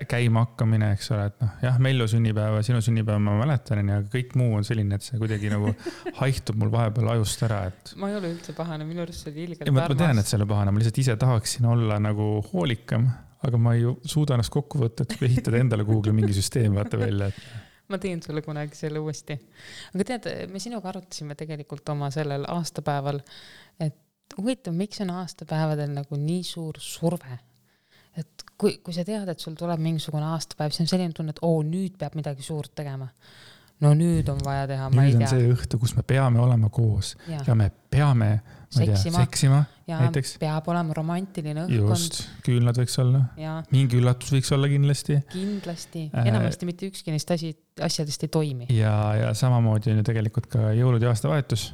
käima hakkamine, eks ole, et jah, Mellu sünnipäeva, sinu sünnipäeva ma mäletan, aga kõik muu on selline, et see kuidagi nagu haihtub mul vahepeal ajust ära, et... Ma ei ole üldse pahane, minu arust see oli ilgelt armas. Ma tean, et see oli pahane, ma lihtsalt ise tahaksin olla nagu hoolikam, aga ma ei suuda ennast kokku võtta, et ehitada endale Google mingi süsteem vaata välja. Ma teen sulle kunagi selle uuesti. Aga tead, me sinuga arutasime tegelikult oma sellel aastapäeval, et huvitav, miks on aastapäevadel nagu nii suur surve? Et kui sa tead, et sul tuleb mingisugune aastapäev, siis on selline tunne, et nüüd peab midagi suurt tegema. No nüüd on vaja teha, ma ei tea. Nüüd on see õhtu, kus me peame olema koos ja me peame seksima ja näiteks. Peab olema romantiline õhkkond. Just, küünlad võiks olla. Ja. Mingi üllatus võiks olla kindlasti. Kindlasti. Enamasti mitte ükski neist asjadest ei toimi. Ja samamoodi on ju tegelikult ka jõulud ja aastavahetus,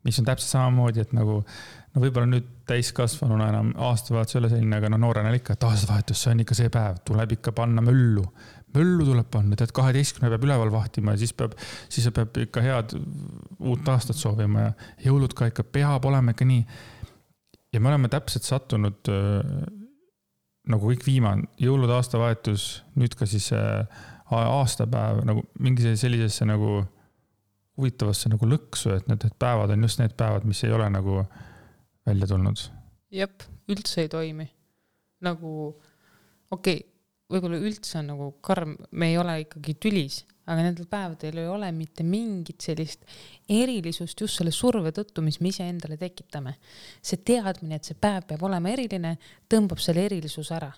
mis on täpselt samamoodi, et nagu võib-olla nüüd täiskasvanuna enam aastavahetus ei ole selline, aga noorena ikka, et aastavahetus, see on ikka see päev, tuleb ikka panna möllu tuleb panna, et 12 peab üleval vahtima ja siis peab ikka head uut aastat soovima ja jõulud ka ikka peab olema ikka nii. Ja me oleme täpselt sattunud nagu kõik viimane, jõulud, aastavahetus, nüüd ka siis aastapäev, nagu mingi sellisesse nagu huvitavasse nagu lõksu, et need päevad on just need päevad, mis ei ole nagu välja tulnud. Jep, üldse ei toimi. Nagu, võib-olla üldse on nagu karm, me ei ole ikkagi tülis, aga nendel päevadel ei ole mitte mingit sellist erilisust just selle surve tõttu, mis me ise endale tekitame. See teadmine, et see päev peab olema eriline, tõmbab selle erilisus ära.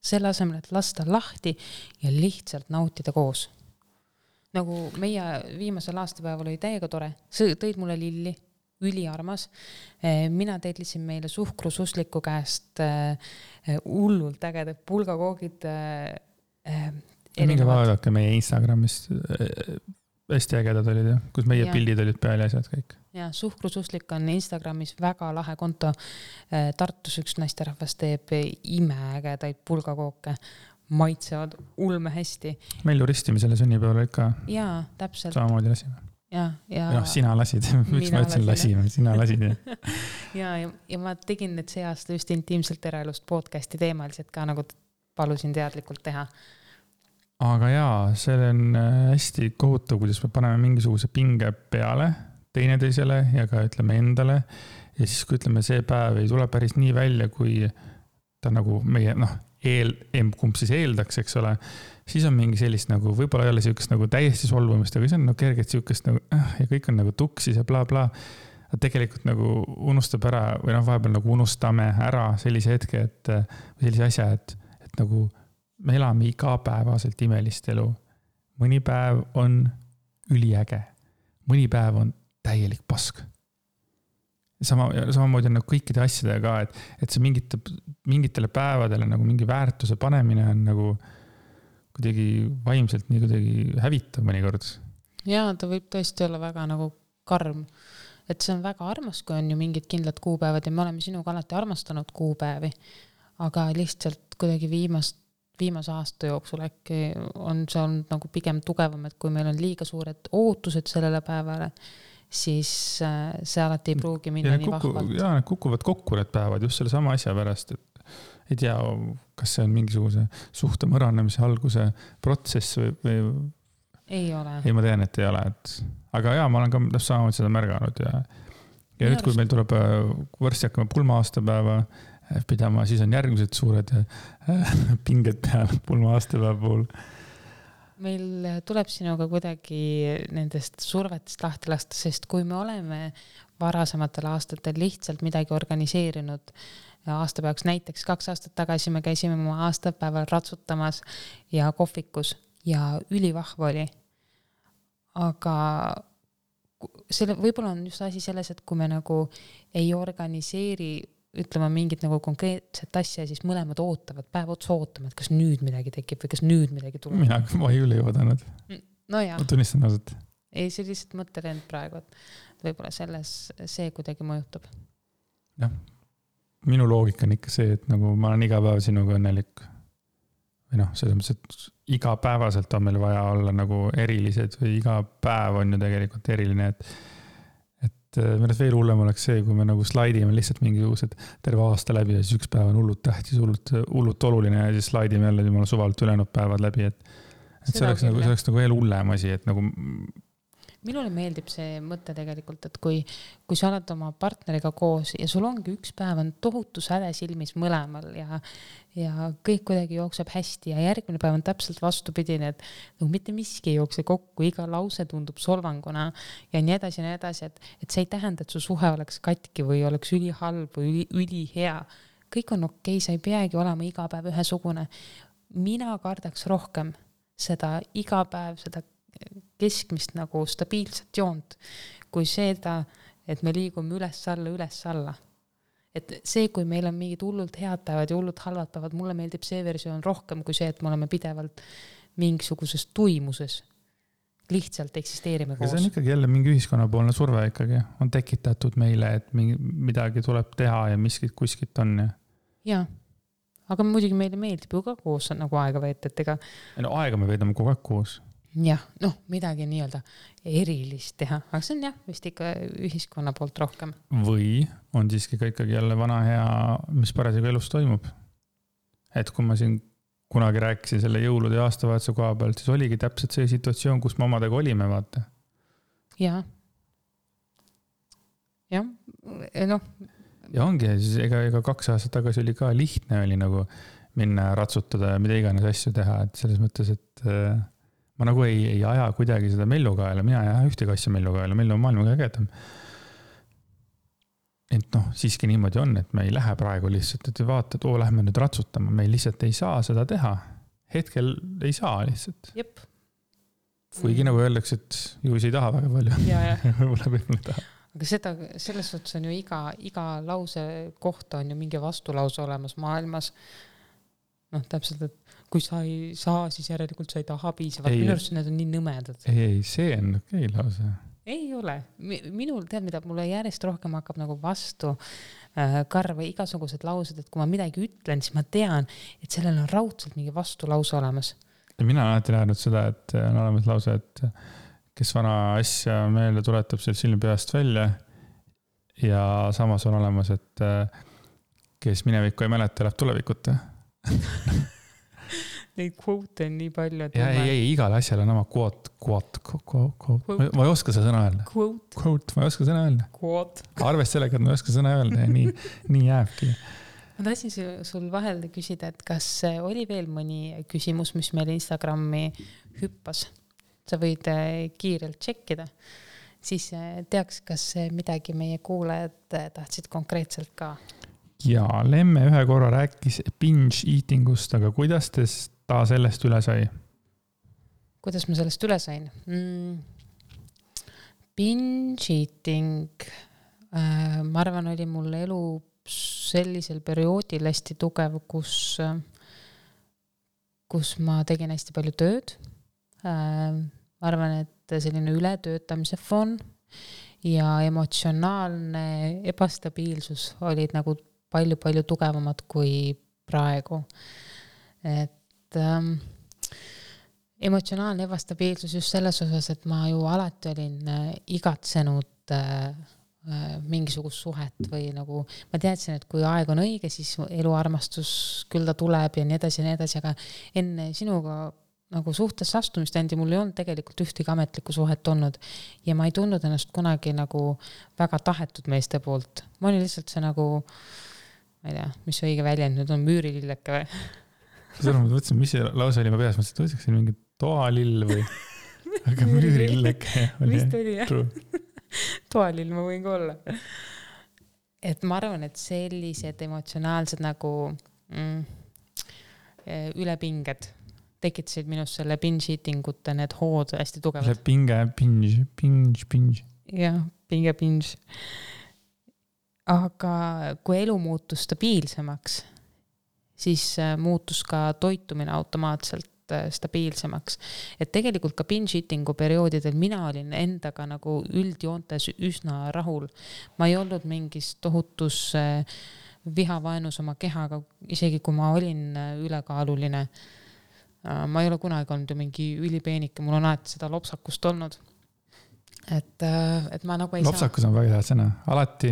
Selle asemel, et lasta lahti ja lihtsalt nautida koos. Nagu meie viimasel aastapäeval oli täiega tore, see tõid mulle lilli, üliarmas. Mina teedlisin meile suhkrususliku käest hullult ägedad pulgakoogid. Minge vaadake meie Instagramist, hästi ägedad olid, kus meie pildid olid peal ja asjad kõik. Ja, suhkrususlik on Instagramis väga lahe konto. Tartus üks naisterahvas teeb imeägedaid pulgakooke. Maitsevad ulme hästi. Mellu ristimisele sünnipäeval ikka. Jaa, täpselt. Samamoodi lasime. Ja sina lasid. Miks ma ütlesin lasime? Sina lasid. ja ma tegin need see aasta just intiimselt eraelust podcasti teemaliselt ka nagu palusin teadlikult teha. Aga see on hästi kohutav, kuidas me paneme mingisuguse pinge peale teineteisele ja ka ütleme endale. Ja siis kui ütleme, see päev ei tule päris nii välja, kui ta nagu meie, kumb siis eeldaks, eks ole, siis on mingi sellist nagu, võib-olla ei ole siukest nagu täiesti solvumist, aga see on kergelt siukest nagu, ja kõik on nagu tuksis ja bla bla. Tegelikult nagu unustab ära, või vahepeal nagu unustame ära sellise hetke, või sellise asja, et nagu me elame igapäevaselt imelist elu. Mõni päev on üliäge. Mõni päev on täielik pask. Samamoodi on nagu kõikide asjadega ka, et see mingitele päevadele nagu mingi väärtuse panemine on nagu kuidagi vaimselt nii kuidagi hävitav mõnikord. Jaa, ta võib tõesti olla väga nagu karm. Et see on väga armas, kui on ju mingid kindlad kuupäevad ja me oleme sinuga alati armastanud kuupäevi, aga lihtsalt kuidagi viimase aasta jooksul äkki on see olnud nagu pigem tugevam, et kui meil on liiga suured ootused sellele päevale, siis see alati ei pruugi minna nii vahvalt. Need kukuvad kokku need päevad just selle sama asja pärast, et ei tea, kas see on mingisuguse suhte mõranemise alguse protsess või... Ei ole. Ei, ma tean, et ei ole. Aga ma olen ka samamoodi seda märganud ja nüüd, kui meil tuleb varsti hakkama pulma aastapäeva pidama, siis on järgmised suured pinged peal pulma aastapäeva puhul. Meil tuleb sinuga kuidagi nendest survetest lahti lasta, sest kui me oleme varasematel aastatel lihtsalt midagi organiseerinud aastapäevaks. Näiteks 2 aastat tagasi me käisime oma aastapäeval ratsutamas ja kohvikus ja ülivahva oli. Aga võib-olla on just asi selles, et kui me nagu ei organiseeri, ütlema mingit nagu konkreetset asja, siis mõlemad ootavad, päev otsa ootama, et kas nüüd midagi tekib või kas nüüd midagi tuleb. Ma ei üle oodanud. No jah. Ma tunnistan ausalt. Ei, see lihtsalt mõttelend praegu, et võib-olla selles see kuidagi mõjutab. Jah, minu loogika on ikka see, et nagu ma olen iga päev sinuga õnnelik. Või noh, selles mõttes, et iga päevaselt on meil vaja olla nagu erilised või iga päev on ju tegelikult eriline, et mõnes veel hullem oleks see, kui me nagu slaidime lihtsalt mingisugused terve aasta läbi ja siis üks päev on hullult tähtis, hullult oluline ja siis slaidime jälle jumala suvalt ülejäänud päevad läbi, et see oleks nagu veel hullem asi, et nagu minule meeldib see mõte tegelikult, et kui sa oled oma partneriga koos ja sul ongi üks päev on tohutu säde silmis mõlemal ja kõik kuidagi jookseb hästi ja järgmine päev on täpselt vastupidine, et nagu mitte miski ei jookse kokku, iga lause tundub solvanguna ja nii edasi, et see ei tähenda, et su suhe oleks katki või oleks ülihalb või ülihea. Kõik on okei, sa ei peagi olema iga päev ühesugune. Mina kardaks rohkem seda iga päev, seda keskmist nagu stabiilset joont, kui seda, et me liigume üles-alla. Et see, kui meil on mingid hullult head päevad ja hullult halvad päevad, mulle meeldib see versioon rohkem kui see, et me oleme pidevalt mingisuguses tuimuses. Lihtsalt eksisteerime koos. See on ikkagi jälle mingi ühiskonnapoolne surve ikkagi. On tekitatud meile, et midagi tuleb teha ja miskit kuskilt on. Ja. Aga muidugi meile meeldib ju ka koos nagu aega veeta, et ega... No aega me veedame kogu aeg koos. Jah, midagi nii-öelda erilist teha, aga see on jah, vist ikka ühiskonna poolt rohkem. Või on siiski ka ikkagi jälle vana hea, mis parasjagu elus toimub. Et kui ma siin kunagi rääkisin selle jõulude ja aastavahetuse koha pealt, siis oligi täpselt see situatsioon, kus me omadega olime, vaata. Ja, Ja ongi, siis ega 2 aastat tagasi oli ka lihtne oli nagu minna ratsutada ja mida iganes asju teha, et selles mõttes, et ma nagu ei aja kuidagi seda mellukaela, mina ei aja ühtegi asja mellukaela, mellu on maailma kõigedam. Et siiski niimoodi on, et me ei lähe praegu lihtsalt, et vaata, et lähme nüüd ratsutama, me lihtsalt ei saa seda teha. Hetkel ei saa lihtsalt. Jep. Kuigi nagu öeldakse, et ju ei taha väga palju. Võib-olla ei taha. Aga selles suhtes on ju iga lause kohta on ju mingi vastulause olemas maailmas. Täpselt, et kui sa ei saa, siis järelikult sa ei taha piisavalt. Minu arust need on nii nõmedad. Ei, see on okei lause. Ei ole. Minul tead, mida mulle järjest rohkem hakkab nagu vastu karva igasugused laused, et kui ma midagi ütlen, siis ma tean, et sellel on raudselt mingi vastulause olemas. Ja mina olen alati näinud seda, et on olemas lause, et kes vana asja meelde tuletab seal silmi peast välja ja samas on olemas, et kes minevikku ei mäleta, läheb tulevikute. Neid quote on nii palju. Ei, igal asjal on oma quote. Ma ei oska seda sõna öelda. Quote, ma ei oska sõna öelda. Arvest sellega, et ma ei oska sõna öelda ja nii jääbki. Ma tahtsin sul vahel küsida, et kas oli veel mõni küsimus, mis meil Instagrami hüppas? Sa võid kiirelt tšekkida. Siis teaks, kas midagi meie kuulajad tahtsid konkreetselt ka. Ja Lemme ühe korra rääkis binge eatingust, aga kuidas ta sellest üle sai? Kuidas ma sellest üle sain? Binge eating, ma arvan, oli mul elu sellisel perioodil hästi tugev, kus ma tegin hästi palju tööd. Ma arvan, et selline ületöötamise foon ja emotsionaalne ebastabiilsus olid nagu palju tugevamad kui praegu. Et emotsionaalne ebastabiilsus just selles osas, et ma ju alati olin igatsenud mingisugust suhet või nagu ma teadsin, et kui aeg on õige, siis eluarmastus küll ta tuleb ja nii edasi, aga enne sinuga nagu suhtes astumist endi mul ei olnud tegelikult ühtegi ametlikku suhet olnud ja ma ei tundnud ennast kunagi nagu väga tahetud meeste poolt. Ma olin lihtsalt see nagu ma ei tea, mis õige väljend nüüd on müürililleke või? Seda ma mõtlesin, mis see lause oli ma peas, mõtlesin, et võtaks siin mingi toalill või aga müürililleke. Vist oli jah. toalil ma võin ka olla. Et ma arvan, et sellised emotsionaalsed nagu ülepinged tekitasid minust selle binge eatingute need hood hästi tugevad. See binge. Jah, binge. Aga kui elu muutus stabiilsemaks, siis muutus ka toitumine automaatselt stabiilsemaks. Et tegelikult ka binge eatingu perioodidel mina olin endaga nagu üldjoontes üsna rahul. Ma ei olnud mingis tohutus vihavaenus oma kehaga, isegi kui ma olin ülekaaluline. Ma ei ole kunagi olnud ju mingi ülipeenike, mul on alati seda lopsakust olnud. Et ma nagu ei lopsakus on väga hea sõna. Alati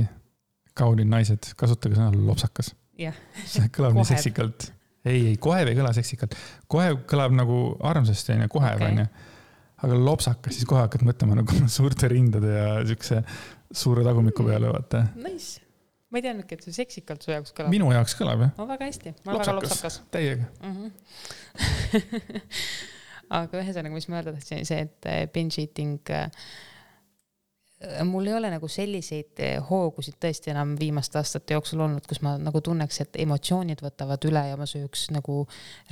kaunid naised, kasutage sõna lopsakas. Jah. See kõlab nii seksikalt. Ei, kohev ei kõla seksikalt. Kohev kõlab nagu armsasti, kohev on ju. Aga lopsakas, siis kohe hakkad mõtlema nagu suurte rindade ja siukse suure tagumiku peale, vaata. Nice. Ma ei teadnudki, et see seksikalt su jaoks kõlab. Minu jaoks kõlab, jah. No väga hästi. Ma olen väga lopsakas. Täiega. Aga ühesõnaga, mis ma öelda tahtsin, see, et binge eating, mul ei ole nagu selliseid hoogusid tõesti enam viimaste aastate jooksul olnud, kus ma nagu tunneks, et emotsioonid võtavad üle ja ma sööks nagu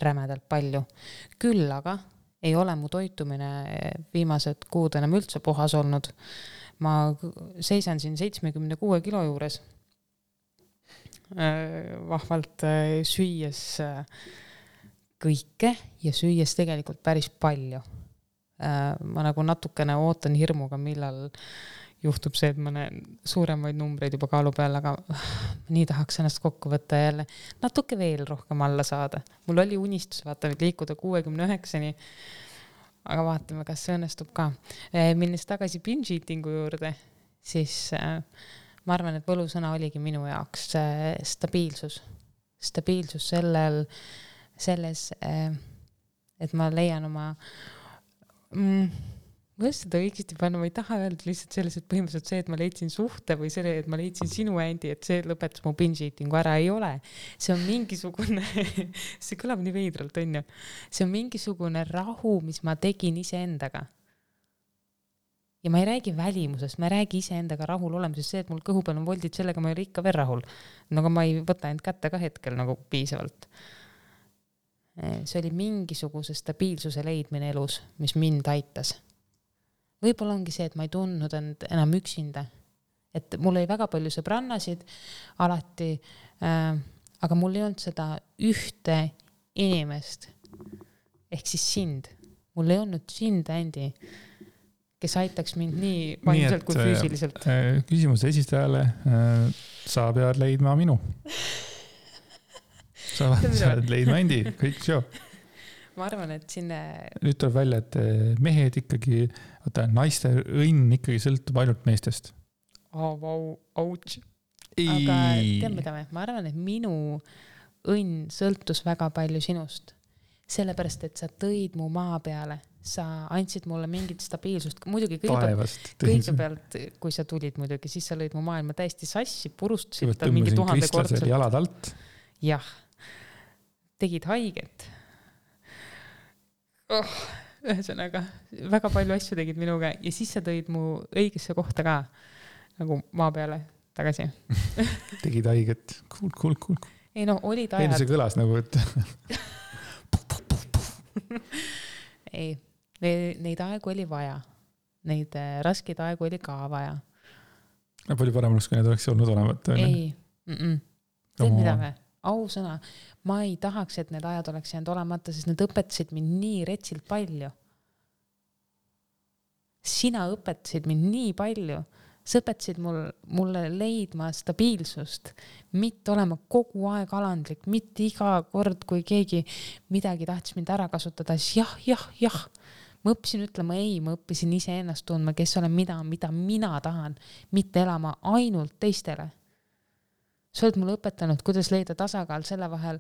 rämedalt palju. Küll aga ei ole mu toitumine viimased kuud enam üldse puhas olnud. Ma seisan siin 76 kilo juures. Vahvalt süües kõike ja süües tegelikult päris palju. Ma nagu natukene ootan hirmuga, millal juhtub see, et ma näen suuremaid numbreid juba kaalu peal, aga nii tahaks ennast kokku võtta jälle natuke veel rohkem alla saada. Mul oli unistus vaata liikuda 69-ni, aga vaatame, kas see õnnestub ka. Minnes tagasi binge eatingu juurde, siis ma arvan, et võlusõna oligi minu jaoks stabiilsus. Stabiilsus selles, et ma leian oma ma seda õigesti panna, ma ei taha öelda lihtsalt selles, et põhimõtteliselt see, et ma leidsin suhte või selle, et ma leidsin sinu Andy, et see lõpetas mu binge eatingu ära, ei ole. See on mingisugune, see kõlab nii veidralt, on ju. See on mingisugune rahu, mis ma tegin iseendaga. Ja ma ei räägi välimusest, ma ei räägi iseendaga rahul olemisest, see, et mul kõhu peal on voldid, sellega ma ei ole ikka veel rahul. Aga ma ei võta end kätte ka hetkel nagu piisavalt. See oli mingisuguse stabiilsuse leidmine elus, mis mind aitas. Võib-olla ongi see, et ma ei tundnud end enam üksinda. Et mul oli väga palju sõbrannasid alati, aga mul ei olnud seda ühte inimest, ehk siis sind. Mul ei olnud sind, Andy, kes aitaks mind nii vaimselt kui füüsiliselt. Küsimuse esistajale, sa pead leidma minu. Sa oled leidma Andy, kõik show. Ma arvan, et sinne... Nüüd tuleb välja, et mehed ikkagi, naiste õnn ikkagi sõltub ainult meestest. Ouch. Aga tead mida me? Ma arvan, et minu õnn sõltus väga palju sinust. Sellepärast, et sa tõid mu maa peale. Sa andsid mulle mingit stabiilsust. Muidugi kõigepealt, kui sa tulid muidugi, siis sa lõid mu maailma täiesti sassi, purustasid tal mingi 1000 kordsel. Jalad alt. Jah. Tegid haiget. Ühesõnaga, väga palju asju tegid minuga ja siis sa tõid mu õigesse kohta ka nagu maa peale tagasi. Tegid haiget. Cool. Ei no, olid ajad. See kõlas nagu, et... Ei, neid aegu oli vaja. Neid raskeid aegu oli ka vaja. Palju parem oleks, kui need oleks olnud olevat. Ei. Teed mida me? Ausõna. Ma ei tahaks, et need ajad oleks jäänud olemata, sest need õpetasid mind nii retsilt palju. Sina õpetasid mind nii palju. Sa õpetasid mulle leidma stabiilsust, mitte olema kogu aeg alandlik, mitte iga kord, kui keegi midagi tahtis mind ära kasutada, siis jah. Ma õppisin ütlema ei, ma õppisin ise ennast tundma, kes olen mida mina tahan, mitte elama ainult teistele. Sa oled mulle õpetanud, kuidas leida tasakaal selle vahel,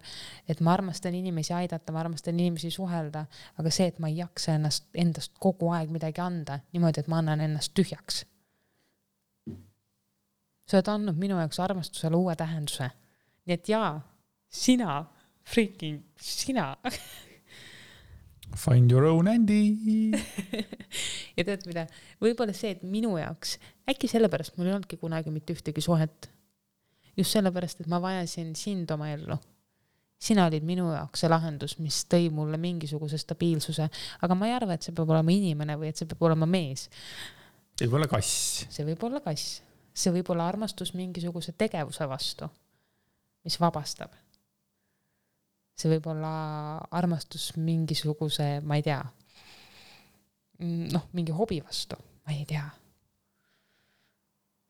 et ma armastan inimesi aidata, ma armastan inimesi suhelda, aga see, et ma ei jaksa endast kogu aeg midagi anda, niimoodi, et ma annan ennast tühjaks. Sa oled andnud minu jaoks armastusele uue tähenduse. Nii et jaa, sina. Find your own Andy. Ja tead mida? Võib-olla see, et minu jaoks, äkki sellepärast mul ei olnudki kunagi mitte ühtegi suhet. Just sellepärast, et ma vajasin sind oma ellu. Sina olid minu jaoks see lahendus, mis tõi mulle mingisuguse stabiilsuse. Aga ma ei arva, et see peab olema inimene või et see peab olema mees. See võib olla kass. See võib olla kass. See võib olla armastus mingisuguse tegevuse vastu, mis vabastab. See võib olla armastus mingisuguse, ma ei tea, mingi hobi vastu, ma ei tea.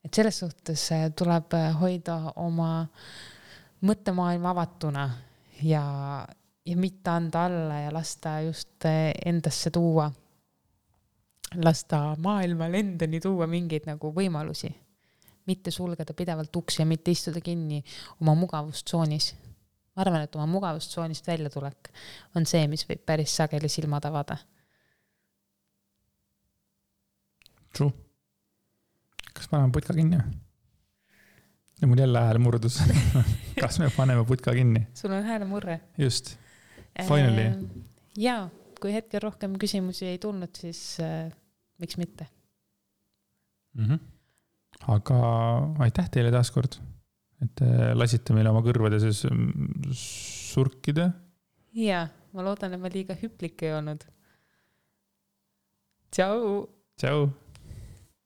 Et selles suhtes tuleb hoida oma mõttemaailma avatuna ja mitte anda alla ja lasta just endasse tuua, lasta maailmal endani tuua mingeid nagu võimalusi. Mitte sulgeda pidevalt uksi ja mitte istuda kinni oma mugavustsoonis. Ma arvan, et oma mugavustsoonist välja tulek on see, mis võib päris sageli silmad avada. True. Kas paneme putka kinni? Ja mul jälle hääl murdus. Kas me paneme putka kinni? Sul on hääle murre. Just. Finally. Jaa, kui hetkel rohkem küsimusi ei tulnud, siis miks mitte? Aga aitäh teile taaskord, et lasite meile oma kõrvade sees surkida. Jaa, ma loodan, et ma liiga hüplik ei olnud. Tšau! Tšau!